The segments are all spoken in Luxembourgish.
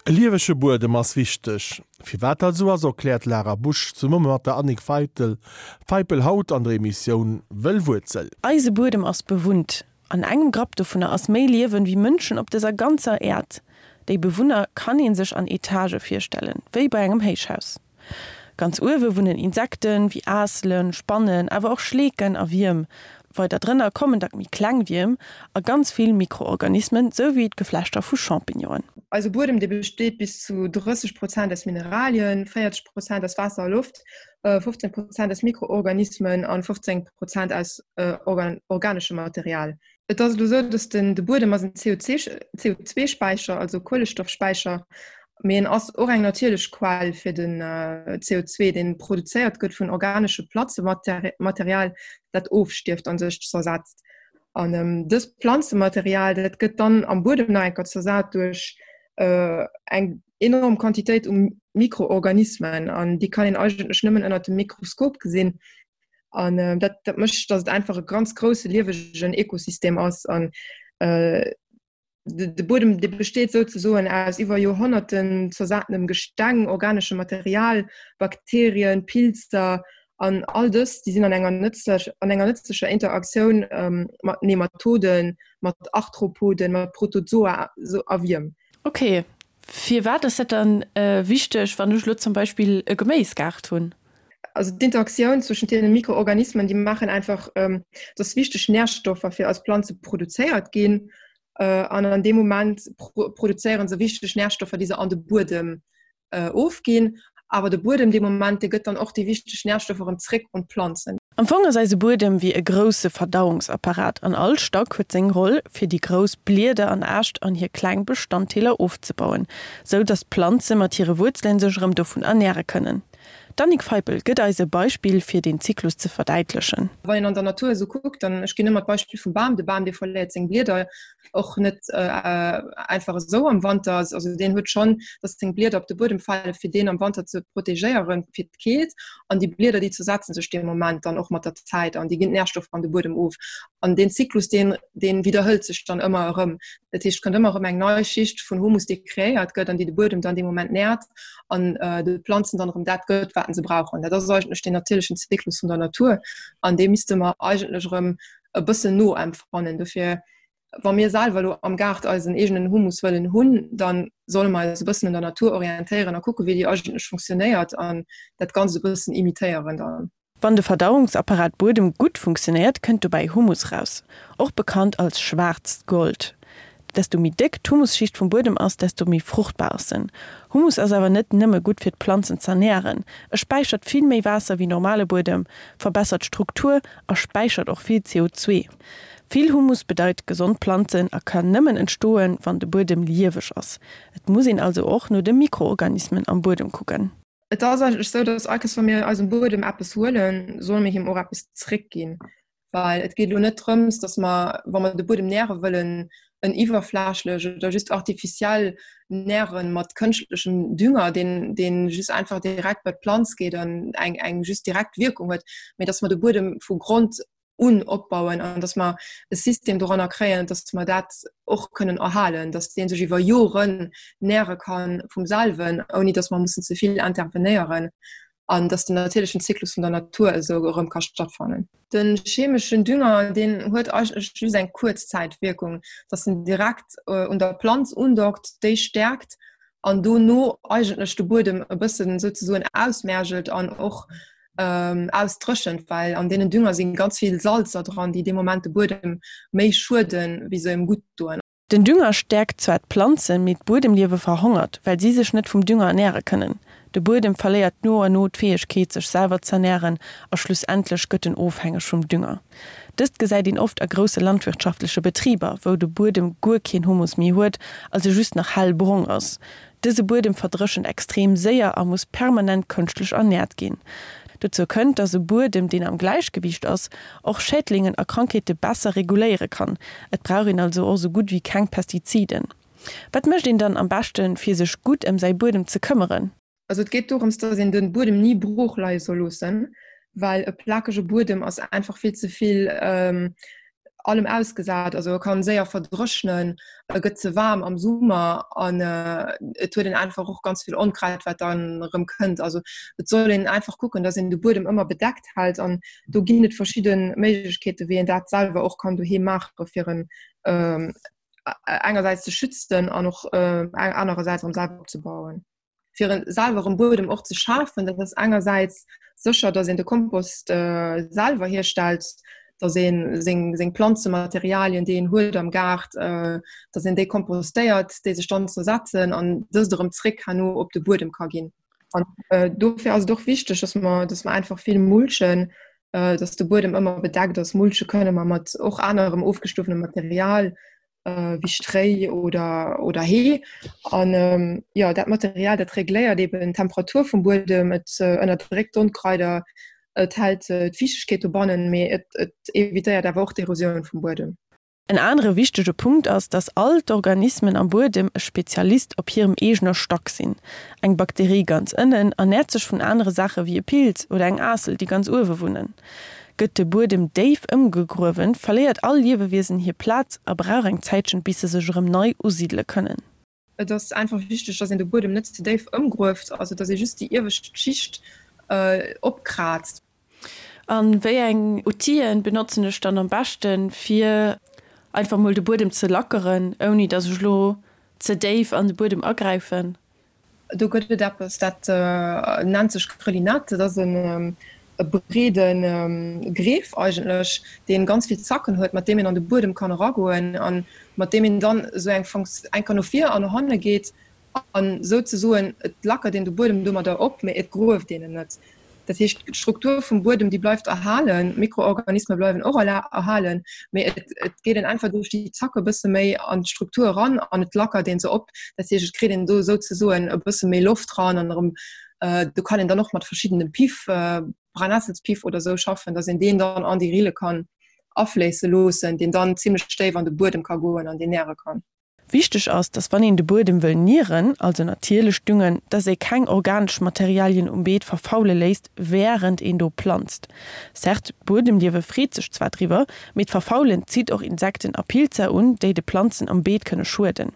E liewege Buedem ass wichteg. Firwat dat esou ass, erkläert d'Lara Busch zesumme mat der Annick Feitl Feipel haut an der Emissioun Wëll Wuerzel. Eise Buedem ass bewunnt. An engem Grapp dovunner ass méi Liewen wéi Mënschen op dëser ganzer Äerd. Déi Bewunner kann ee sech an Etagë virstellen, wéi bei engem Héichhaus. Ganz uewe wunnen Insekten, wéi Aasselen, Spannen, awer och Schleeken a Wierm. Weider drënner kommen dack méi kleng Wierm a ganz vill Mikroorganismen, sou wéi d'Geflechter vu Champignonen. Eise Buedem, dee besteet bis zu 30 Prozent aus Mineralien, 40 Prozent aus Waasser a Loft, 15 Prozent aus Mikroorganismen an 15 Prozent aus organeschem Material. Et ass elo esou, datt den de Buedem ass en CO2-Späicher, also Kuelestoffspäicher, mee en ass och eng natierlech Quell fir den CO2, deen produzéiert gëtt vun organesche Planzematerial, dat ofstierft a sech zersetzt. An dëst Planzematerial, dat gëtt dann am Buedem nach eng Kéier zersat duerch eng enorm Quantitéit u Mikroorganismen an déi kann een eigentlech nëmmen ënnert dem Mikroskop gesinn. An äh, dat, dat mécht, datt et einfach e ganz grousse liewegen Ökosystem ass an äh, de, de Buedem de besteet souzesoen aus iwwer Joerhonnerten zersatenem Gesteng, organeschem Material, Bakterien, Pilzer an all dës, déi sinn an enger nëtzlech, an enger nëtzlecher Interaktioun ähm, mat Nematoden, mat Arthropoden, mat Protozoa so, a Wierm. Okay, firwat ass dat dann äh, wichteg, wann ech lo zum Beispill e Geméisgaart hunn? Also d'Interaktioun zwëschent deene Mikroorganismen, déi maachen einfach, ähm, dass wichteg Nährstoffer fir eis Planze produzéiert ginn. Äh, an an deem Moment pro produzéieren se wichteg Nährstoffer, déi se an de Buedem äh, ofginn. Awer de Buedem dee Moment, dee gëtt dann och déi wichteg Nährstoffer erëm zréck un d'Planzen. Am Fong ass eise Buedem wéi e grousse Verdauungsapparat an all Stack huet seng Roll, fir déi grouss Blieder an Äscht an hir kleng Bestanddeeler ofzebauen, sou dass d'Planze mat hire Wuerzelen sech erëm dovun ernäre kënnen. D'Annick Feipel gëtt eis e Beispill fir deen Zyklus ze verdäitlechen. Wann een an der Natur esou kuckt, dann, ech ginn ëmmer d'Beispill vum Bam, de Bam dee verléiert seng Blieder och net einfach esou am Wanter, also deen huet schonn, datt seng Blieder op de Buedem fale fir deen am Wanter ze protegéieren fir d'Keelt an déi Blieder déi zersetzen sech dee Moment dann och mat der Zäit an déi ginn d'Närstoffer an de Buedem of an deen Zyklus deen deen widderhëlt sech dann ëmmer erëm. Dat heescht et kënnt ëmmer erëm eng nei Schicht vun Humus déi kreéiert gëtt an déi de Buedem dann dee Moment nährt an de Planzen dann erëm dat gëtt, wat se brauchen. Dat ass eigentlech den natierlechen Zyklus vun der Natur an dee misste mer eigentlech erëm e bëssen noempfannen. Dofir, wa mir selwer elo am Gaart eisen eegenen Humus wëllen hunn, dann solle mer eis e bëssen un der Natur orientéieren a kucke wéi déi eigentlech funktionéiert an dat Ganzt e bëssen imitéieren dann. Wann de Verdauungsapparat Buedem gutt funktionéiert, kënnt dobäi Humus raus, och bekannt als schwaarzt Gold. Desto méi déck d'Humusschicht vum Buedem ass, desto méi fruchtbar ass en. Humus ass awer net nëmme gutt fir d'Planzen z'ernären, e späichert vill méi Waasser wéi normale Buedem, verbessert d'Struktur a späichert och vill CO2. Vill Humus bedeit gesond Planzen a kann nëmmen entstoen, wann de Buedem lieweg ass. Et muss een also och no de Mikroorganismen am Buedem kucken. Et ass eigentlech esou, dass all Kéiers, wa mir eisem Buedem eppes huelen, solle mir him och eppes zréckginn. Well et geet elo net drëms, dass mer, wa mer de Buedem näre wëllen, en iwwerflächlech oder just artificiell näre mat kënschtlechem Dünger, deen, deen just einfach direkt bei d'Planz geet an eng, eng just direkt Wierkung huet, mee dass mer de Buedem vu Grond un opbauen an dass mer e System doranner kréien, dass mer dat och kënnen erhalen, dass dee sech iwwer Joren näre ka vum selwen, ouni dass mer mussen ze vill intervenéieren an dass den natierlechen Zyklus vun der Natur esou erëm ka stattfannen. De chemeschen Dünger, deen huet eigentlech just eng Kuerzzäitwierkung, dass en direkt un der Planz undockt, déi stäerkt an dono eigentlech de Buedem e bëssen souzesoen ausmergelt an och ausdréchent, well an deenen Dünger si ganz vill Salzer dran, déi dee Moment de Buedem méi schueden, wéi se em gutt doen. Den Dünger stäerkt zwar d'Planzen, mee d'Buedemliewe verhongert, well si sech net vum Dünger ernäre kënnen. De Buedem verléiert no a no d'Fäegkeet, sech selwer z'ernären a schlussendlech gëtt en ofhängeg vum Dünger. Dëst gesäit een oft a grousse landwirtschaftleche Betriber, wou de Buedem guer keen Humus méi huet, also just nach hell brong ass. Dëse Buedem verdréchent extrem séier a muss permanent kënschtlech ernäert ginn. Dozou kënnt, dass e Buedem, deen am Gläichgewiicht ass, och Schädlingen a Krankheete besser reguléiere kann. Et brauch een also och sou gutt wéi keng Pestiziden. Wat mécht een dann am beschten, fir sech gutt ëm säi Buedem ze këmmeren? Also et geet dorëms, dass een de Buedem ni brooch leie soll loossen, well e plakege Buedem ass einfach vill ze vill. allem ausgesat. Also e kann séier verdréchnen, e gëtt ze waarm am Summer an et huet een einfach och ganz vill Onkraut, wat dann erëm kënnt. Also et soll een einfach kucken, dass een de Buedem ëmmer bedeckt hält an do ginn et verschidde Méiglechkeete wéi een dat selwer och kann doheem maache fir en engersäits ze schützen an och anerersäits erëm selwer opzebauen. Fir en selwer en Buedem och ze schafen, dat ass engersäits sécher, datt een de Kompost selwer hierstellt, datt ee seng seng Planzematerialien, déi een huet am Gaart, datt een déi kompostéiert, déi sech dann zersetzen an dëst erëm zréck herno op de Buedem ka ginn. An dofir ass et och wichteg, datt mer, datt mer einfach vill mulchen, datt de Buedem ëmmer bedeckt ass. Mulche kënne mer mat och anerem ofgestuffenem Material wéi Stréi oder, oder Hee. An jo, dat Material, dat regléiert eben d'Temperatur vum Buedem, et ënnerdréckt d'Onkraider, et hält d'Fiichtegkeet dobannen, mee et, et evitéiert awer och d'Erosioun vum Buedem. En anere wichtege Punkt ass, dass all d'Organismen am Buedem e Spezialist op hirem eegener Stack sinn. Eng Bakterie ganz ënnen ernäert sech vun anere Saache wéi e Pilz oder eng Aassel, déi ganz uewe wunnen. Gëtt de Buedem déif ëmgegruewen, verléiert all Liewewiesen hir Plaz a brauch eng Zäitchen, bis se sech erëm nei usidele kënnen. Et ass einfach wichteg, dass een de Buedem net ze déif ëmgrueft, also dass ee just déi iewescht Schicht opkraazt. A wéi eng Outile benotzen ech dann am beschten, fir einfach mol de Buedem ze lackeren, ouni dass ech elo ze déif an de Buedem agräifen? Do gëtt et eppes, dat nennt sech Grelinette. Dat ass e breede Greef eigentlech, dee ganz vill Zacken huet, mat deem een an de Buedem kann eragoen a mat deem een dann esou eng eng Kéier no vir an no hanne geet an souzesoen, et lackert een de Buedem domadder op, mee et grueft een en net. Dat heescht, d'Struktur vum Buedem, déi bleift erhalen, d'Mikroorganisme bleiwen och erhalen, mee et, et geet een einfach duerch déi Zacke e bësse méi an d'Struktur eran an et lackert ee se op. Dat heescht, et kritt een do souzesoen e bësse méi Loft dran an erëm, do kann een dann och mat verschiddene Piff, Brennessels-Piff oder esou schaffen, datt een deen dann an déi Rille kann afléisse loossen, deen dann zimlech déif an de Buedem ka goen an deen näre kann. Wichteg ass, dass wann een de Buedem wëll nieren, also natierlech düngen, dass ee keng organesch Materialien um Beet verfaule léisst wärend een do planzt. Certes, d'Buedemliewe freet sech zwar driwwer, mee d'Verfaulen zitt och Insekten a Pilzer un, déi de Planzen am Beet kënne schueden.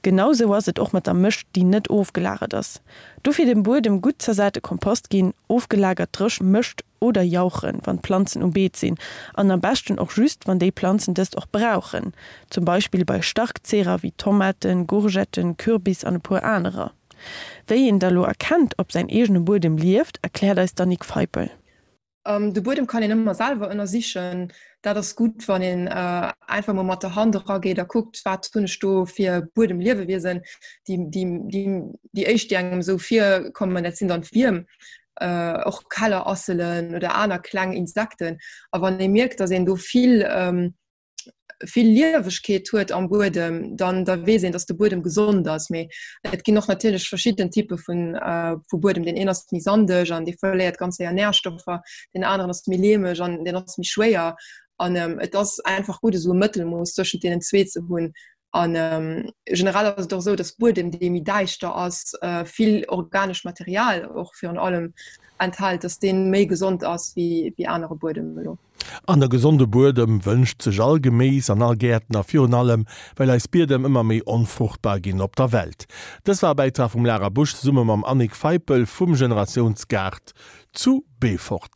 Genau sou ass et och mat der Mëscht, déi net ofgelagert ass. Dofir dem Buedem gutt zersate Kompost ginn, ofgelagert dréch Mëscht oder jauchen, wann d'Planzen um Beet sinn, an am beschten och just, wann déi Planzen dëst och brauchen, zum Beispill bei Starkzehrer wéi Tomaten, Gourgetten, Kürbis an e puer anerer. Wéi een da lo erkennt, ob säin eegene Buedem lieft, erkläert eis d'Annick Feipel. De Buedem kann een ëmmer selwer ënnersichen. Dat ass gutt, wann een einfach mol mat der Hand erageet a kuckt, wat hunn ech do fir Buedemliewewiesen. Déi, déi, déi, déi éischt, déi engem esou virkommen, dat sinn dann d'Wierm. och Kellerasselen oder aner kleng Insekten. A wann ee mierkt, datt een do vill vill Liewegkeet huet am Buedem, dann da weess een, datt de Buedem gesond ass. Mee et ginn och natierlech verschidden Typpe vun vu Buedem. Deen een ass méi sandeg an dee verléiert ganz séier Närstoffer, deen aneren ass méi leemeg an deen ass méi schwéier. An et ass einfach gutt, esou e Mëttelmooss tëschent deenen zwee ze hunn. An generell ass et och esou, datt Buedem, dee méi däischter ass, vill organescht Material och virun allem enthält, datt dee méi gesond ass wéi anere Buedem elo. An e gesonde Buedem wënscht sech all Geméis an all Gäertner, virun allem well eis Biedem ëmmer méi onfruchtbar ginn op der Welt. Dës war e Bäitrag vum Lara Busch zesumme mam Annick Feipel vum Generatiounsgaart zu Beefort.